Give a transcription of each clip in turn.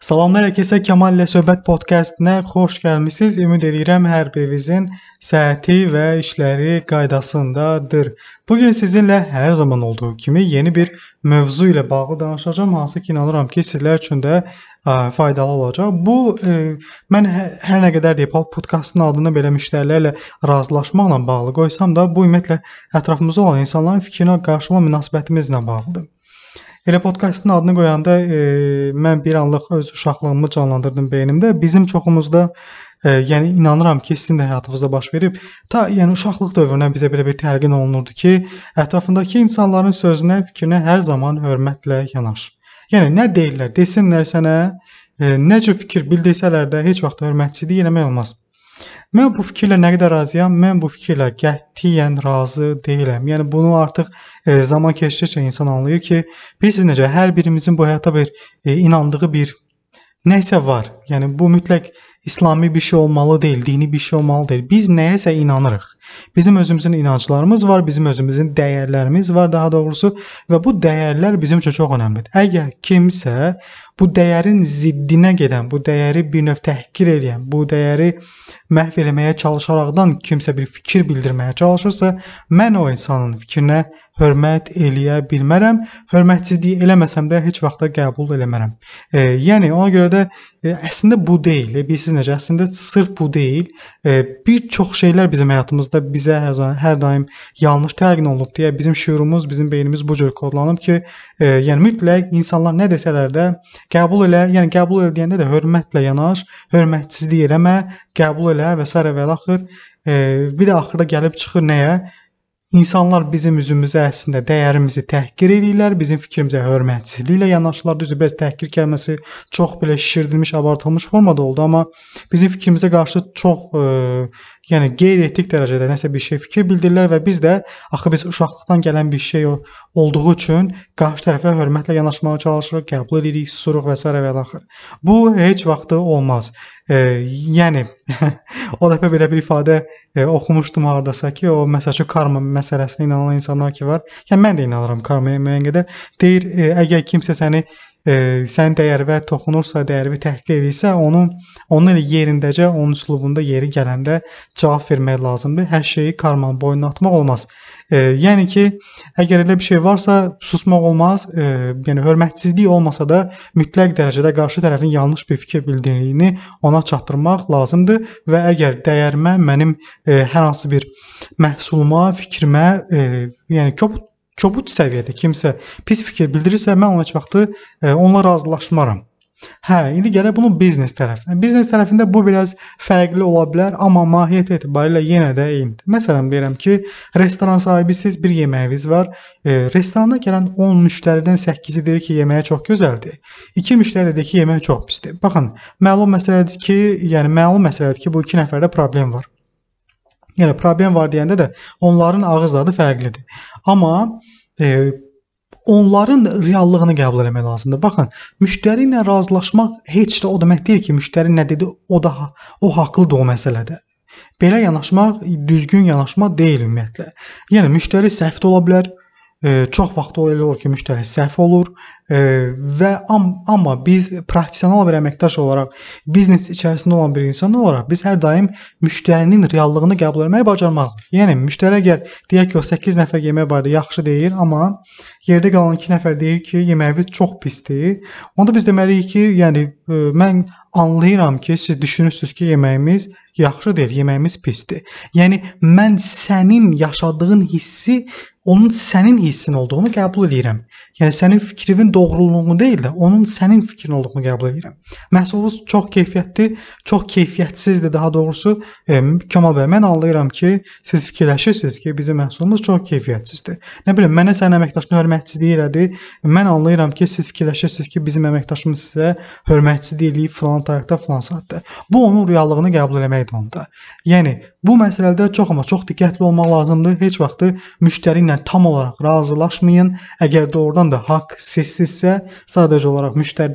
Salamlar hər kəsə, Kemal ilə Söhbət podkastına xoş gəlmisiniz. Ümid edirəm hər birinizin səhhəti və işləri qaydasındadır. Bu gün sizinlə hər zaman olduğu kimi yeni bir mövzu ilə bağlı danışacağam, hansı ki inanıram ki sizlər üçün də faydalı olacaq. Bu mən hər nə qədər deyib podkastın adını belə müştərilərlə razılaşmaqla bağlı qoysam da, bu ümumiyyətlə ətrafımızda olan insanların fikrinə qarşı olan münasibətimizlə bağlıdır. Elə podkastın adını qoyanda mən bir anlıq öz uşaqlığımı canlandırdım beynimdə. Bizim çoxumuzda yəni inanıram ki, sizin də həyatınızda baş verib. Yəni uşaqlıq dövründən bizə belə bir təlqin olunurdu ki, ətrafındakı insanların sözünə, fikrinə hər zaman hörmətlə yanaş. Yəni nə deyirlər, desinlər sənə, nə cür fikir bildirsələr də heç vaxt hörmətsizlik eləmək olmaz. Mən bu fikirlə nə qədər razıyam? Mən bu fikirlə qətiyyən razı deyiləm. Yəni bunu artıq zaman keçdikcə insan anlayır ki, bilirsiniz necə hər birimizin bu həyata bir inandığı bir nəsə var. Yəni bu mütləq İslami bir şey olmalı deyil, dini bir şey olmalı deyil. Biz nəyəsə inanırıq. Bizim özümüzün inanclarımız var, bizim özümüzün dəyərlərimiz var daha doğrusu və bu dəyərlər bizim üçün çox önəmlidir. Əgər kimsə bu dəyərin ziddinə gedən, bu dəyəri bir növ təhqir edən, bu dəyəri məhv eləməyə çalışaraqdan kimsə bir fikir bildirməyə çalışırsa, mən o insanın fikrinə hörmət eləyə bilmərəm. Hörmətsizlik eləməsəm də heç vaxt da qəbul eləmərəm. Yəni ona görə də əslində bu deyil. Bilirsiniz necə? Əslində sırf bu deyil. Bir çox şeylər bizim həyatımızda bizə hər daim yanlış təlqin olunub deyə bizim şüurumuz, bizim beynimiz bu cür kodlanıb ki, yəni mütləq insanlar nə desələr də qəbul elə, yəni qəbul elə deyəndə də hörmətlə yanaş, hörmətsizlik eləmə, qəbul elə və s. və axır. Bir də axırda gəlib çıxır nəyə? İnsanlar bizim üzümüzə əslində dəyərimizi təhqir edirlər, bizim fikrimizə hörmətsizliklə yanaşırlar. Düzdür, bəs təhqir kəlməsi çox belə şişirdilmiş, abartılmış formada oldu, amma bizim fikrimizə qarşı çox yəni qeyri-etik dərəcədə nəsə bir şey fikir bildirirlər və biz də axı biz uşaqlıqdan gələn bir şey olduğu üçün qarşı tərəfə hörmətlə yanaşmağa çalışırıq, qəbul edirik, susuruq və s. və axır. Bu heç vaxt olmaz. Yəni o dəfə belə bir ifadə oxumuşdum hardasa ki, o məsələn karma məsələsinə inanan insanlar ki var. Yəni mən də inanıram karmaya müəyyən qədər. Deyir, əgər kimsə sənin dəyərvə toxunursa, dəyərvi təhqir edirsə, onun elə yerindəcə, onun üslubunda yeri gələndə cavab vermək lazımdır. Hər şeyi karmanın boynuna atmaq olmaz. Yəni ki, əgər elə bir şey varsa, susmaq olmaz. Yəni hörmətsizlik olmasa da mütləq dərəcədə qarşı tərəfin yanlış bir fikir bildirdiyini ona çatdırmaq lazımdır və əgər dəyərimə, mənim hər hansı bir məhsuluma, fikrimə, yəni kobud səviyyədə kimsə pis fikir bildirirsə, mən ona heç vaxtı onunla razılaşmaram. İndi gələk bunun biznes tərəfinə. Biznes tərəfində bu biraz fərqli ola bilər, amma mahiyyət etibarilə yenə də eynidir. Məsələn, deyirəm ki, restoran sahibisiz, bir yeməyiniz var. Restorana gələn 10 müştəridən 8-i deyir ki, yeməyi çox gözəldir. 2 müştəri deyir ki, yeməyi çox pisdir. Baxın, məlum məsələdir ki, bu 2 nəfərdə problem var. Yəni problem var deyəndə də onların ağız dadı fərqlidir. Amma onların reallığını qəbul etmək lazımdır. Baxın, müştəri ilə razılaşmaq heç də o demək deyil ki, müştəri nə dedi, o haqlıdır o məsələdə. Belə yanaşmaq düzgün yanaşma deyil ümumiyyətlə. Yəni müştəri səhv də ola bilər. Çox vaxt elə olur ki, müştəri səhv olur və amma biz professional bir əməkdaş olaraq, biznes içərisində olan bir insan olaraq biz hər daim müştərinin reallığını qəbul etməyi bacarmalıyıq. Yəni müştəri əgər deyək ki, o 8 nəfər yemək barədə yaxşı deyir, amma yerdə qalan 2 nəfər deyir ki, yeməyiniz çox pisdir. Onda biz deməliyik ki, yəni mən anlayıram ki, siz düşünürsünüz ki, yeməyimiz yaxşı deyil, yeməyimiz pisdir. Yəni mən sənin yaşadığın hissi onun sənin hissin olduğunu qəbul edirəm. Yəni sənin fikrinin doğruluğunu deyil də, onun sənin fikrin olduğunu qəbul edirəm. Məhsulunuz çox keyfiyyətli, çox keyfiyyətsizdir daha doğrusu. Kemal bəy, mən anlayıram ki, siz fikirləşirsiniz ki, bizim məhsulumuz çox keyfiyyətsizdir. Nə bilim, mənə sənin əməkdaşına hörmətsizlik elədi. Mən anlayıram ki, siz fikirləşirsiniz ki, bizim əməkdaşımız sizə hörmətsizlik eləyib filan tarixdə, filan saatda. Bu onun reallığını qəbul eləməkdir onda. Yəni Bu məsələdə amma çox diqqətli olmaq lazımdır. Heç vaxt müştəri ilə tam olaraq razılaşmayın. Əgər doğrudan da haqq sizsizsə, sadəcə olaraq müştəri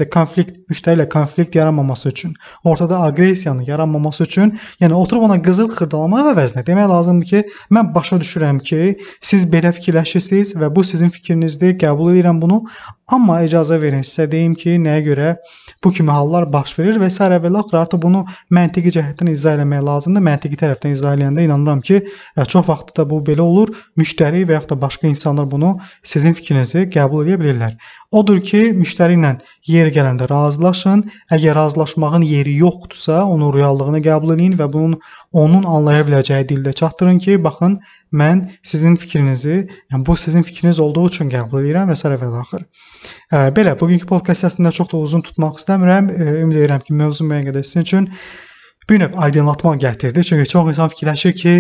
ilə konflikt yaranmaması üçün, ortada aqressiyanın yaranmaması üçün, yəni oturub ona qızıl xırdalamaq əvəzinə demək lazımdır ki, mən başa düşürəm ki, siz belə fikirləşirsiniz və bu sizin fikrinizdir, qəbul edirəm bunu. Amma icazə verin sizə deyim ki, nəyə görə bu kimi hallar baş verir və s. və axır artıq bunu məntiqi cəhətdən izah eləmək lazımdır. Məntiqi tərəfdən izah eləyəndə inanıram ki, çox vaxt da bu belə olur. Müştəri və yaxud da başqa insanlar bunu sizin fikrinizi qəbul edə bilirlər. Odur ki, müştəri ilə yeri gələndə razılaşın. Əgər razılaşmağın yeri yoxdursa, onun reallığını qəbul edin və onun anlaya biləcəyi dildə çatdırın ki, baxın, mən sizin fikrinizi, yəni bu sizin fikriniz olduğu üçün qəbul edirəm və s. və axır. Belə, bugünkü podkast əslində çox da uzun tutmaq istəmirəm. Ümid edirəm ki, mövzu müəyyən qədər sizin üçün bir növ aydınlatma gətirdi. Çünki çox insan fikirləşir ki,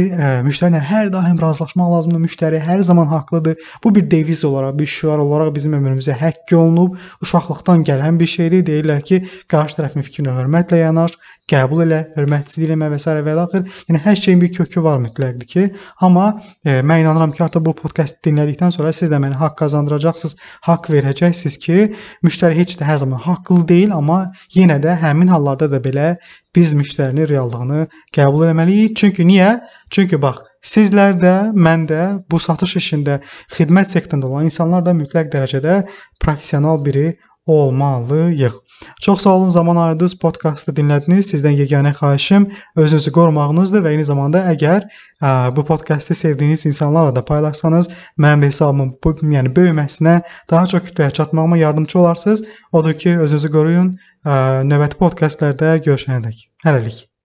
müştəri ilə hər daim razılaşmaq lazımdır, müştəri hər zaman haqlıdır. Bu bir deviz olaraq, bir şüar olaraq bizim ömrümüzə həkk olunub, uşaqlıqdan gələn bir şeydir. Deyirlər ki, qarşı tərəfin fikrinə hörmətlə yanaş, qəbul elə, hörmətsizlik eləmə və s. və axır. Yəni hər şeyin bir kökü var mütləqdir ki, amma mən inanıram ki, artıq bu podkastı dinlədikdən sonra siz də mənə haqq qazandıracaqsınız, haqq verəcəksiniz ki, müştəri heç də hər zaman haqlı deyil, amma yenə də həmin hallarda da belə biz müştərinin reallığını qəbul etməliyik. Çünki niyə? Çünki bax, sizlər də, mən də bu satış işində, xidmət sektorunda olan insanlar da mütləq dərəcədə professional biri olmalıyıq. Çox sağ olun, zaman ayırdınız, podkastı dinlədiniz. Sizdən yeganə xahişim özünüzü qorumağınızdır və eyni zamanda əgər bu podkastı sevdiyiniz insanlarla da paylaşsanız, mənim də hesabımın böyüməsinə, daha çox kütləyə çatmağıma yardımcı olarsınız. Odur ki, özünüzü qoruyun. Növbəti podkastlarda görüşənədək. Hələlik.